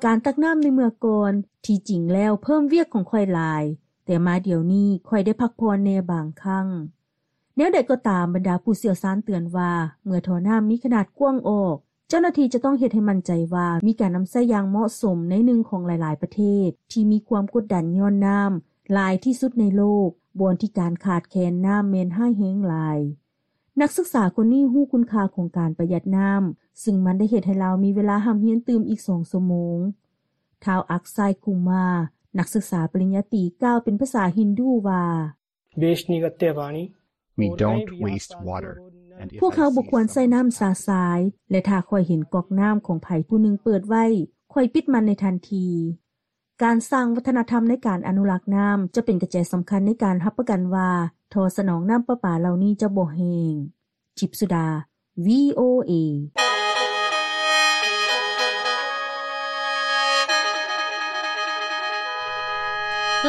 ການຕັກນ້ຳໃນເມື່ອກ່ອນ ທີ່ຈິງແລ້ວເພີ່ມວຽກຂອງຂ້ອຍຫຼາຍ, ແຕ່ມາດຽວນີ້ຂ້ອຍໄດ້ພັກຜ່ອນແດ່ບາງຄັ້ງ. ແນວໃດກໍຕາມ, ບັນດາຜູ້ຊ່ຽວຊານເຕືອນວ່າ ເມື່ອທໍ່ນ້ຳມີຂະໜາດກວ້າງອອກ, ເຈົ້າໜ້າທີ່ຈະຕ້ອງເຮັດໃຫ້ໝັ້ນໃຈວ່າມີການນຳໃຊ້ຢ່າງເໝາະສົມໃນໜຶ່ງຂອງຫຼາຍໆປະເທດທີ່ມີຄວາມກົດດັນຍ້ອນນ້ຳຫຼາຍທີ່ສຸດໃນໂລກ, ບ່ອນທີ່ການຂາດແຄນນ້ຳແມ່ນຮ້າຍແຮງຫຼາຍ. ນັກສຶກສາຄົນນີ້ຮູ້ຄຸນຄ່າຂອງການປະຢັດນ້ຳ, ຊຶ່ງມັນໄດ້ເຮັດໃຫ້ລາວມີເວລາຮ່ຳຮຽນຕື່ມອີກສອງຊົ່ວໂມງ. ທ້າວ ອັກຊາຍ ກຸມາ ນັກສຶກສາປະລິນຍາຕີ ກ່າວເປັນພາສາຮິນດູວ່າ: We don't waste water. ພວກເຮົາບໍ່ຄວນໃຊ້ນ້ຳຊະຊາຍ ແລະ ຖ້າຂ້ອຍເຫັນກອກນ້ຳຂອງໃຜຜູ້ໜຶ່ງເປີດໄວ້ ຂ້ອຍປິດມັນໃນທັນທີ. ການສ້າງວັດທະນະທຳໃນການອະນຸລັກນ້ຳ ຈະເປັນກະແຈສຳຄັນໃນການຮັບປະກັນວ່າ ທໍ່ສະໜອງນ້ຳປະປາເຫຼົ່ານີ້ຈະບໍ່ແຫ້ງ. ຈິບສຸດາ VOA.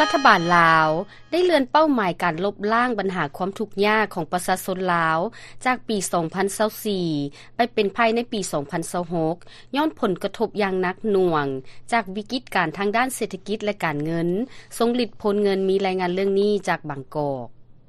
ລັດຖະບານລາວໄດ້ເລື່ອນເປົ້າໝາຍການລົບລ້າງບັນຫາຄວາມທຸກຍາກຂອງປະຊາຊົນລາວ ຈາກປີສອງພັນຊາວສີ່ ໄປເປັນພາຍໃນປີສອງພັນຊາວຫົກ ຍ້ອນຜົນກະທົບຢ່າງໜັກໜ່ວງຈາກວິກິດການທາງດ້ານເສດຖະກິດ ແລະ ການເງິນ ຊົງລິດໂພນເງິນ. ມີລາຍງານເລື່ອງນີ້ຈາກບາງກອກ.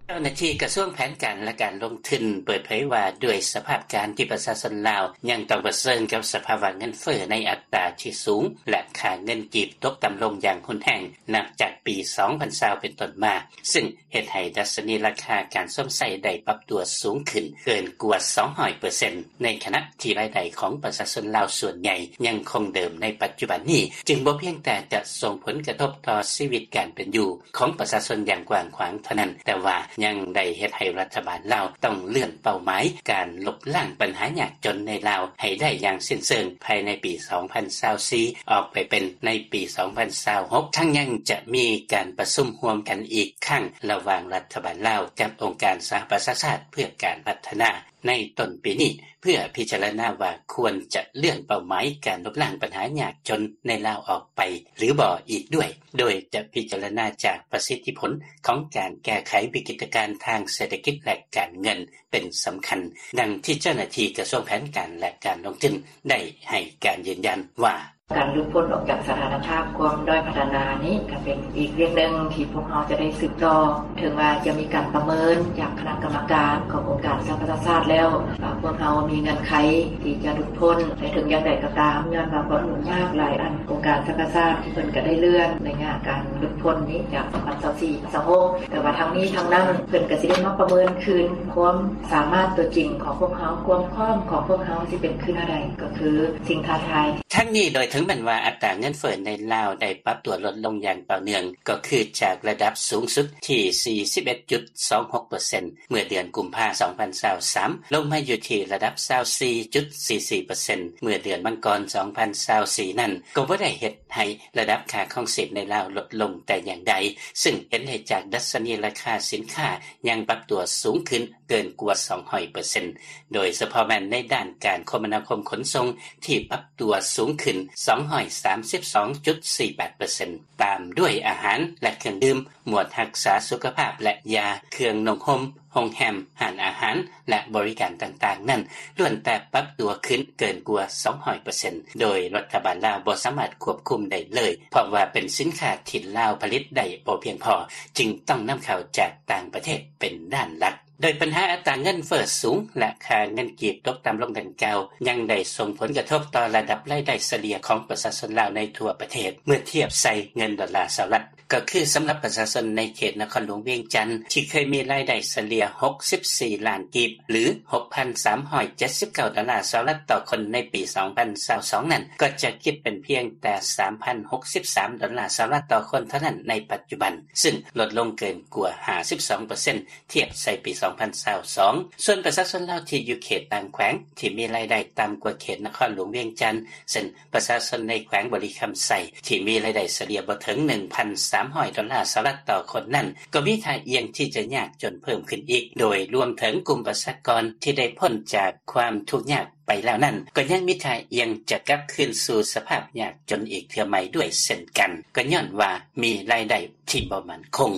ເຈົ້າໜ້າທີ່ກະຊວງແຜນການ ແລະ ການລົງທຶນເປີດເຜີຍວ່າ ດ້ວຍສະພາບການທີ່ປະຊາຊົນລາວຍັງຕ້ອງປະເຊີນກັບສະພາວະເງິນເຟີ້ໃນອັດຕາທີ່ສູງ ແລະ ຄ່າເງິນກີບຕົກຕ່ຳລົງຢ່າງຮຸນແຮງ ນັບຈາກປີສອງພັນຊາວເປັນຕົ້ນມາ ຊຶ່ງເຮັດໃຫ້ດັດຊະນີລາຄາການຊົມໃຊ້ໄດ້ປັບຕົວສູງຂຶ້ນເກີນກວ່າສອງຮ້ອຍເປີເຊັນ ໃນຂະນະທີ່ລາຍໄດ້ຂອງປະຊາຊົນລາວສ່ວນໃຫຍ່ຍັງຄົງເດີມໃນປັດຈຸບັນນີ້ ຈຶ່ງບໍ່ພຽງແຕ່ຈະສົ່ງຜົນກະທົບຕໍ່ຊີວິດການເປັນຢູ່ ຂອງປະຊາຊົນຢ່າງກວ້າງຂວາງເທົ່ານັ້ນ, ແຕ່ວ່າຍັງໄດ້ເຮັດໃຫ້ລັດຖະບານລາວຕ້ອງເລື່ອນເປົ້າໝາຍການລົບລ້າງບັນຫາຍາກຈົນໃນລາວໃຫ້ໄດ້ຢ່າງສິ້ນເຊີງພາຍໃນປີສອງພັນຊາວສີ່ ອອກໄປເປັນໃນປີສອງພັນຊາວຫົກ ທັງຍັງຈະມີການປະຊຸມຮ່ວມກັນອີກຄັ້ງ ລະຫວ່າງລັດຖະບານລາວກັບອົງການສະຫະປະຊາຊາດເພື່ອການພັດທະນາ ໃນຕົ້ນປີນີ້ ເພື່ອພິຈາລະນາວ່າຄວນຈະເລື່ອນເປົ້າໝາຍການລົບລ້າງບັນຫາຍາກຈົນໃນລາວອອກໄປ ຫຼື ບໍ່ອີກດ້ວຍ, ໂດຍຈະພິຈາລະນາຈາກປະສິດທິຜົນຂອງການແກ້ໄຂວິກິດການທາງເສດຖະກິດ ແລະ ການເງິນເປັນສຳຄັນ, ດັ່ງທີ່ເຈົ້າໜ້າທີ່ກະຊວງແຜນການ ແລະ ການລົງທຶນໄດ້ໃຫ້ການຢືນຢັນວ່າ: ການຫຼຸດພົ້ນອອກຈາກສະຖານະພາບຄວາມດ້ອຍພັດທະນານີ້ ກໍເປັນອີກວຽກໜຶ່ງທີ່ພວກເຮົາຈະໄດ້ສືບຕໍ່. ເຖິງວ່າຈະມີການປະເມີນຈາກຄະນະກຳມະການຂອງອົງການສະຫະປະຊາຊາດແລ້ວ ວ່າພວກເຮົາມີເງື່ອນໄຂທີ່ຈະຫຼຸດພົ້ນ, ແຕ່ເຖິງຢ່າງໃດກໍຕາມ ຍ້ອນວ່າຄວາມຫຍຸ້ງຍາກຫຼາຍອັນ ອົງການສະຫະປະຊາຊາດເພິ່ນກໍໄດ້ເລື່ອນໄລຍະການຫຼຸດພົ້ນນີ້ຈາກສອງພັນຊາວສີ່ ສອງພັນຊາວຫົກ ແຕ່ວ່າທັງນີ້ທັງນັ້ນ ເພິ່ນກໍຊິໄດ້ມາປະເມີນຄືນຄວາມສາມາດຕົວຈິງຂອງພວກເຮົາ, ຄວາມພ້ອມຂອງພວກເຮົາຊິເປັນຄືແນວໃດ ກໍຄືສິ່ງທ້າທາຍ. ທັງນີ້ ໂດຍເຖິງແມ່ນວ່າອັດຕາເງິນເຟີ້ໃນລາວໄດ້ປັບຕົວລົດລົງຢ່າງຕໍ່ເນື່ອງ ກໍຄືຈາກລະດັບສູງສຸດທີ່ສີ່ສິບເອັດຈຸດສອງຫົກເປີເຊັນ ເມື່ອເດືອນກຸມພາ ສອງພັນຊາວສາມ ລົງມາຢູ່ທີ່ລະດັບຊາວສີ່ຈຸດສີ່ສີ່ເປີເຊັນ ເມື່ອເດືອນມັງກອນ ສອງພັນຊາວສີ່ນັ້ນ ກໍບໍ່ໄດ້ເຮັດໃຫ້ລະດັບຄ່າຄອງຊີບໃນລາວລົດລົງແຕ່ຢ່າງໃດ, ຊຶ່ງເຫັນໄດ້ຈາກດັດຊະນີລາຄາສິນຄ້າຍັງປັບຕົວສູງຂຶ້ນເກີນກວ່າສອງຮ້ອຍເປີເຊັນ ໂດຍສະເພາະແມ່ນໃນດ້ານການຄົມມະນາຄົມຂົນສົ່ງ ທີ່ປັບຕົວສູງຂຶ້ນສອງຮ້ອຍສາມສິບສອງຈຸດສີ່ແປດເປີເຊັນ ຕາມດ້ວຍອາຫານ ແລະ ເຄື່ອງດື່ມ, ໝວດຮັກສາສຸຂະພາບ ແລະ ຢາ, ເຄື່ອງນຸ່ງຫົ່ມ, ໂຮງແຮມ, ຮ້ານອາຫານ ແລະ ບໍລິການຕ່າງໆນັ້ນ ລ້ວນແຕ່ປັບຕົວຂຶ້ນເກີນກວ່າສອງຮ້ອຍເປີເຊັນ ໂດຍລັດຖະບານລາວບໍ່ສາມາດຄວບຄຸມໄດ້ເລີຍ ເພາະວ່າເປັນສິນຄ້າທີ່ລາວຜະລິດໄດ້ບໍ່ພຽງພໍ ຈຶ່ງຕ້ອງນຳເຂົ້າຈາກຕ່າງປະເທດເປັນດ້ານຫຼັກ. ໂດຍບັນຫາອັດຕາເງິນເຟີ້ສູງ ແລະ ຄ່າເງິນກີບຕົກຕ່ຳລົງດັ່ງກ່າວ ຍັງໄດ້ສົ່ງຜົນກະທົບຕໍ່ລະດັບລາຍໄດ້ສະເລ່ຍຂອງປະຊາຊົນລາວໃນທົ່ວປະເທດ ເມື່ອທຽບໃສ່ເງິນດອນລາສະຫະລັດ. ກໍຄືສຳລັບປະຊາຊົນໃນເຂດນະຄອນຫຼວງວຽງຈັນ ທີ່ເຄີຍມີລາຍໄດ້ສະເລ່ຍຫົກສິບສີ່ລ້ານກີບ ຫຼື ຫົກພັນສາມຮ້ອຍເຈັດສິບເກົ້າດອນລາສະຫະລັດຕໍ່ຄົນໃນປີສອງພັນຊາວສອງນັ້ນ ກໍຈະຄິດເປັນພຽງແຕ່ສາມພັນຫົກສິບສາມດອນລາສະຫະລັດຕໍ່ຄົນເທົ່ານັ້ນໃນປັດຈຸບັນ ຊຶ່ງລົດລົງເກີນກວ່າຫ້າສິບສອງເປີເຊັນ ທຽບໃສ່ປີສອງພັນຊາວສອງ. ສ່ວນປະຊາຊົນລາວທີ່ຢູ່ເຂດຕ່າງແຂວງ ທີ່ມີລາຍໄດ້ຕ່ຳກວ່າເຂດນະຄອນຫຼວງວຽງຈັນ ເຊັ່ນ ປະຊາຊົນໃນແຂວງບໍລິຄຳໄຊ ທີ່ມີລາຍໄດ້ສະເລ່ຍບໍ່ເຖິງໜຶ່ງພັນສາມຮ້ອຍດອນລາສະຫະລັດຕໍ່ຄົນນັ້ນ ກໍມີທ່າອ່ຽງທີ່ຈະຍາກຈົນເພີ່ມຂຶ້ນອີກ, ໂດຍລວມເຖິງກຸ່ມປະຊາກອນທີ່ໄດ້ພົ້ນຈາກຄວາມທຸກຍາກໄປແລ້ວນັ້ນ ກໍຍັງມີທ່າອ່ຽງຈະກັບຄືນສູ່ສະພາບຍາກຈົນອີກເທື່ອໃໝ່ດ້ວຍເຊັ່ນກັນ, ກໍຍ້ອນວ່າມີລາຍໄດ້ທີ່ບໍ່ໝັ້ນຄົງ.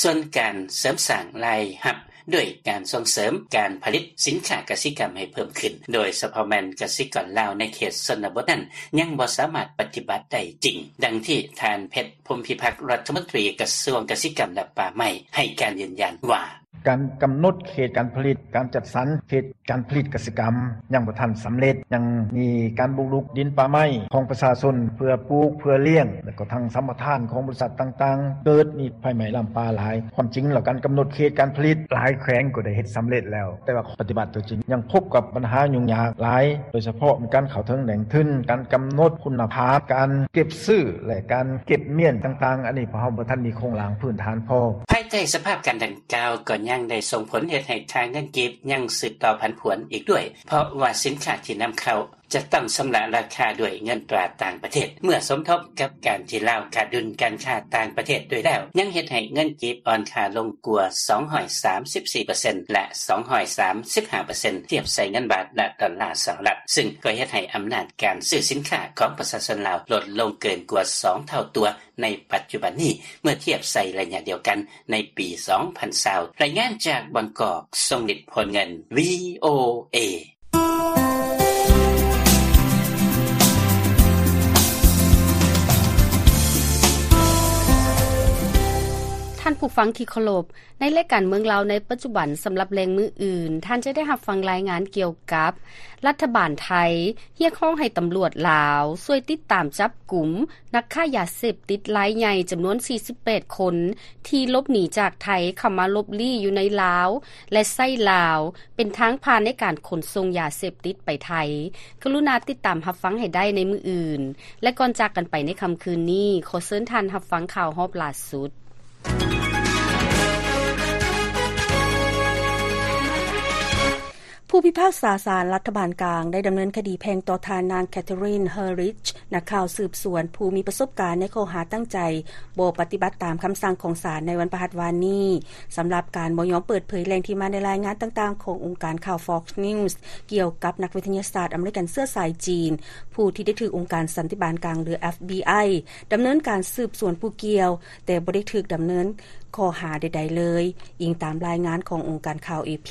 ສ່ວນການເສີມສ້າງລາຍຮັບ ດ້ວຍການສົ່ງເສີມການຜະລິດສິນຄ້າກະສິກຳໃຫ້ເພີ່ມຂຶ້ນ, ໂດຍສະເພາະແມ່ນກະສິກອນລາວໃນເຂດຊົນນະບົດນັ້ນ ຍັງບໍ່ສາມາດປະຕິບັດໄດ້ຈິງ, ດັ່ງທີ່ທ່ານ ເພັດ ພົມພິພັກ ລັດຖະມົນຕີກະຊວງກະສິກຳ ແລະ ປ່າໄມ້ ໃຫ້ການຢືນຢັນວ່າ: ການກຳນົດເຂດການຜະລິດ, ການຈັດສັນເຂດການຜະລິດກະສິກຳຍັງບໍ່ທັນສຳເລັດ, ຍັງມີການບຸກລຸກດິນປ່າໄມ້ຂອງປະຊາຊົນເພື່ອປູກ, ເພື່ອລ້ຽງ ແລ້ວກໍທັງສຳປະທານຂອງບໍລິສັດຕ່າງໆ ເກີດມີໄຟໄໝ້ລາມປ່າຫຼາຍ. ຄວາມຈິງແລ້ວ ການກຳນົດເຂດການຜະລິດຫຼາຍແຂວງກໍໄດ້ເຮັດສຳເລັດແລ້ວ, ແຕ່ວ່າ ປະຕິບັດຕົວຈິງຍັງພົບກັບບັນຫາຫຍຸ້ງຍາກຫຼາຍ, ໂດຍສະເພາະມີການເຂົ້າເຖິງແຫຼ່ງທຶນ, ການກຳນົດຄຸນນະພາບ, ການເກັບຊື້ ແລະ ການເກັບມ້ຽນຕ່າງໆ, ອັນນີ້ພວກເຮົາບໍ່ທັນມີໂຄງລ່າງພື້ນຖານພໍ. ພາຍໃຕ້ສະພາບການດັ່ງກ່າວ ກໍຍັງໄດ້ສົ່ງຜົນເຮັດໃຫ້ຄ່າເງິນກີບຍັງສືບຕໍ່ຜັນຜວນອີກດ້ວຍ, ເພາະວ່າສິນຄ້າທີ່ນຳເຂົ້າຈະຕ້ອງຊຳລະລາຄາດ້ວຍເງິນຕາຕ່າງປະເທດ, ເມື່ອສົມທົບກັບການທີ່ລາວຂາດດຸນການຄ້າຕ່າງປະເທດດ້ວຍແລ້ວ, ຍັງເຮັດໃຫ້ເງິນກີບອ່ອນຄ່າລົງກວ່າສອງຮ້ອຍສາມສິບສີ່ເປີເຊັນ ແລະ ສອງຮ້ອຍສາມສິບຫ້າເປີເຊັນ ທຽບໃສ່ເງິນບາດ ແລະ ດອນລາສະຫະລັດ, ຊຶ່ງກໍເຮັດໃຫ້ອຳນາດການຊື້ສິນຄ້າຂອງປະຊາຊົນລາວລົດລົງເກີນກວ່າສອງເທົ່າຕົວໃນປັດຈຸບັນນີ້ ເມື່ອທຽບໃສ່ໄລຍະດຽວກັນໃນປີສອງພັນຊາວ. ລາຍງານຈາກບາງກອກ, ຊົງລິດ ໂພນເງິນ, ວີໂອເອ. ທ່ານຜູ້ຟັງທີ່ເຄົາລົບ, ໃນລາຍການເມືອງລາວໃນປັດຈຸບັນ ສຳລັບແລງມື້ອື່ນ, ທ່ານຈະໄດ້ຮັບຟັງລາຍງານກ່ຽວກັບ ລັດຖະບານໄທຮຽກຮ້ອງໃຫ້ຕຳຫຼວດລາວຊ່ວຍຕິດຕາມຈັບກຸມນັກຄ້າຢາເສບຕິດລາຍໃຫຍ່ຈຳນວນສີ່ສິບແປດຄົນ ທີ່ຫຼົບໜີຈາກໄທເຂົ້າມາຫຼົບລີ້ຢູ່ໃນລາວ ແລະ ໃຊ້ລາວເປັນທາງຜ່ານໃນການຂົນສົ່ງຢາເສບຕິດໄປໄທ. ກະລຸນາຕິດຕາມຮັບຟັງໃຫ້ໄດ້ໃນມື້ອື່ນ. ແລະ ກ່ອນຈາກກັນໄປໃນຄ່ຳຄືນນີ້, ຂໍເຊີນທ່ານຮັບຟັງຂ່າວຮອບຫຼ້າສຸດ. ຜູ້ພິພາກສາສານລັດຖະບານກາງໄດ້ດຳເນີນຄະດີແພ່ງຕໍ່ທ່ານນາງ Catherine Herridge ນັກຂ່າວສືບສວນຜູ້ມີປະສົບການໃນຂໍ້ຫາຕັ້ງໃຈບໍ່ປະຕິບັດຕາມຄຳສັ່ງຂອງສານໃນວັນພະຫັດວານນີ້ ສຳລັບການບໍ່ຍອມເປີດເຜີຍແຫຼ່ງທີ່ມາໃນລາຍງານຕ່າງໆຂອງອົງການຂ່າວ Fox News ກ່ຽວກັບນັກວິທະຍາສາດອາເມລິກັນເຊື້ອສາຍຈີນ ຜູ້ທີ່ໄດ້ຖືກອົງການສັນຕິບານກາງ ຫຼື FBI ດຳເນີນການສືບສວນຜູ້ກ່ຽວ, ແຕ່ບໍ່ໄດ້ຖືກດຳເນີນຂໍ້ຫາໃດໆເລີຍ, ອີງຕາມລາຍງານຂອງອົງການຂ່າວ AP.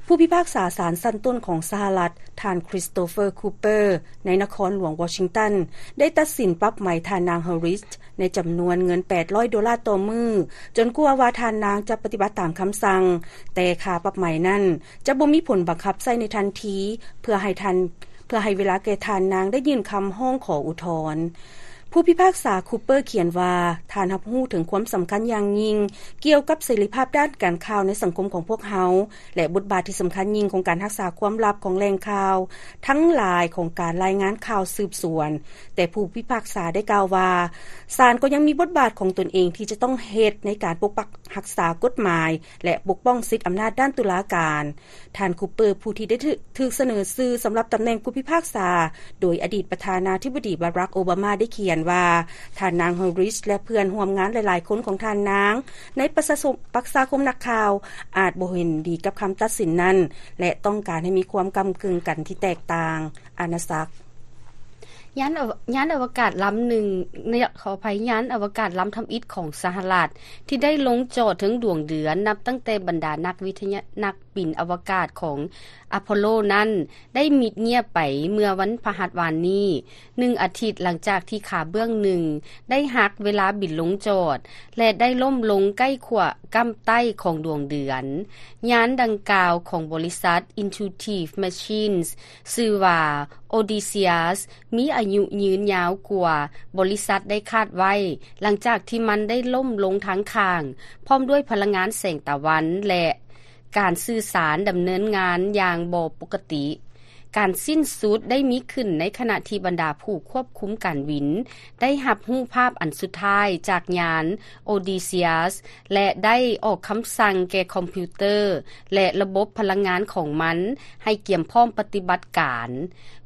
ຜູ້ພິພາກສາສານຊັ້ນຕົ້ນຂອງສະຫະລັດ, ທ່ານ Christopher Cooper ໃນນະຄອນຫຼວງວໍຊິງຕັນ ໄດ້ຕັດສິນປັບໃໝທ່ານນາງ Herridge ໃນຈຳນວນເງິນແປດຮ້ອຍໂດລາຕໍ່ມື້, ຈົນກວ່າວ່າທ່ານນາງຈະປະຕິບັດຕາມຄຳສັ່ງ, ແຕ່ຄ່າປັບໃໝນັ້ນຈະບໍ່ມີຜົນບັງຄັບໃຊ້ໃນທັນທີ ເພື່ອໃຫ້ທ່ານ ເພື່ອໃຫ້ເວລາແກ່ທ່ານນາງໄດ້ຍື່ນຄຳຮ້ອງຂໍອຸທອນ. ຜູ້ພິພາກສາ Cooper ຂຽນວ່າ, ທ່ານຮັບຮູ້ເຖິງຄວາມສຳຄັນຢ່າງຍິ່ງກ່ຽວກັບເສລີພາບດ້ານການຂ່າວໃນສັງຄົມຂອງພວກເຮົາ ແລະ ບົດບາດທີ່ສຳຄັນຍິ່ງຂອງການຮັກສາຄວາມລັບຂອງແຫຼ່ງຂ່າວທັງຫຼາຍຂອງການລາຍງານຂ່າວສືບສວນ, ແຕ່ຜູ້ພິພາກສາໄດ້ກ່າວວ່າ, ສານກໍຍັງມີບົດບາດຂອງຕົນເອງທີ່ຈະຕ້ອງເຮັດໃນການປົກປັກຮັກສາກົດໝາຍ ແລະ ປົກປ້ອງສິດອຳນາດດ້ານຕຸລາການ. ທ່ານ Cooper ຜູ້ທີ່ໄດ້ຖືກ ຖືກສະເໜີຊື່ສຳລັບຕຳແໜ່ງຜູ້ພິພາກສາ ໂດຍອະດີດປະທານາທິບໍດີ Barack Obama ໄດ້ຂຽນວ່າ, ທ່ານນາງ Herridge ແລະ ເພື່ອນຮ່ວມງານຫຼາຍໆຄົນຂອງທ່ານນາງໃນປະຊາຄົມ ປະຊາຄົມນັກຂ່າວ ອາດບໍ່ເຫັນດີກັບຄຳຕັດສິນນັ້ນ ແລະ ຕ້ອງການໃຫ້ມີຄວາມກ້ຳກຶ່ງກັນທີ່ແຕກຕ່າງ. ອານາສັກ. ຍານອະວະ ຍານອະວະກາດລຳໜຶ່ງ, ຂໍອະໄພ, ຍານອະວະກາດລຳທຳອິດຂອງສະຫະລັດ ທີ່ໄດ້ລົງຈອດເທິງດວງເດືອນ ນັບຕັ້ງແຕ່ບັນດານັກວິທະຍາ ນັກ ບິນອະວະກາດຂອງອາໂປໂລນັ້ນ ໄດ້ມິດງຽບໄປເມື່ອວັນພະຫັດວານນີ້, ໜຶ່ງອາທິດຫຼັງຈາກທີ່ຂາເບື້ອງໜຶ່ງໄດ້ຫັກເວລາບິນລົງຈອດ ແລະ ໄດ້ລົ້ມລົງໃກ້ຂົ້ວກ້ຳໃຕ້ຂອງດວງເດືອນ. ຍານດັ່ງກ່າວຂອງບໍລິສັດ Intuitive Machines ຊື່ວ່າ Odysseus ມີອາຍຸຍືນຍາວກວ່າບໍລິສັດໄດ້ຄາດໄວ້, ຫຼັງຈາກທີ່ມັນໄດ້ລົ້ມລົງທາງຂ້າງ ພ້ອມດ້ວຍພະລັງງານແສງຕາວັນ ແລະ ການສື່ສານດຳເນີນງານຢ່າງບໍ່ປົກກະຕິ. ການສິ້ນສຸດໄດ້ມີຂຶ້ນໃນຂະນະທີ່ບັນດາຜູ້ຄວບຄຸມການບິນໄດ້ຮັບຮູບພາບອັນສຸດທ້າຍຈາກຍານ Odysseus ແລະ ໄດ້ອອກຄຳສັ່ງແກ່ຄອມພິວເຕີ ແລະ ລະບົບພະລັງງານຂອງມັນໃຫ້ກຽມພ້ອມປະຕິບັດການ.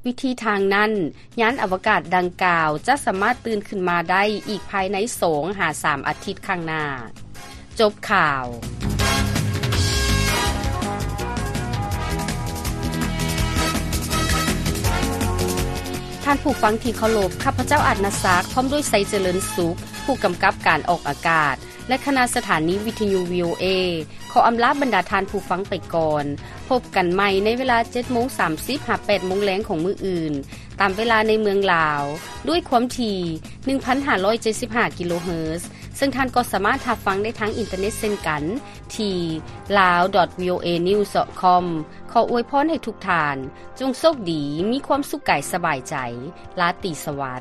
ວິທີທາງນັ້ນ, ຍານອະວະກາດດັ່ງກ່າວຈະສາມາດຕື່ນຂຶ້ນມາໄດ້ອີກພາຍໃນສອງຫາສາມອາທິດຂ້າງໜ້າ. ຈົບຂ່າວ. ທ່ານຜູ້ຟັງທີ່ເຄົາລົບ, ຂ້າພະເຈົ້າ ອາດນາສັກ ພ້ອມດ້ວຍ ໄຊເຈຣິນສຸກ ຜູ້ກຳກັບການອອກອາກາດ ແລະ ຄະນະສະຖານີວິທະຍຸ ວີໂອເອ ຂໍອຳລາບັນດາທ່ານຜູ້ຟັງໄປກ່ອນ. ພົບກັນໃໝ່ໃນເວລາເຈັດໂມງສາມສິບຫາແປດໂມງແລງຂອງມື້ອື່ນ, ຕາມເວລາໃນເມືອງລາວ, ດ້ວຍຄວາມຖີ່ ໜຶ່ງພັນຫ້າຮ້ອຍເຈັດສິບຫ້າ ກິໂລເຮີດ, ເຊິ່ງທ່ານກໍສາມາດຮັບຟັງໄດ້ທາງອິນເຕີເນັດເຊັ່ນກັນ ທີ່ lawdotvoanews.com. ຂໍອວຍພອນໃຫ້ທຸກທ່ານ ຈົ່ງໂຊກດີ, ມີຄວາມສຸກກາຍສະບາຍໃຈ. ລາຕີສະຫວັດ.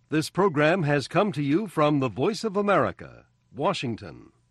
This program has come to you from the Voice of America, Washington.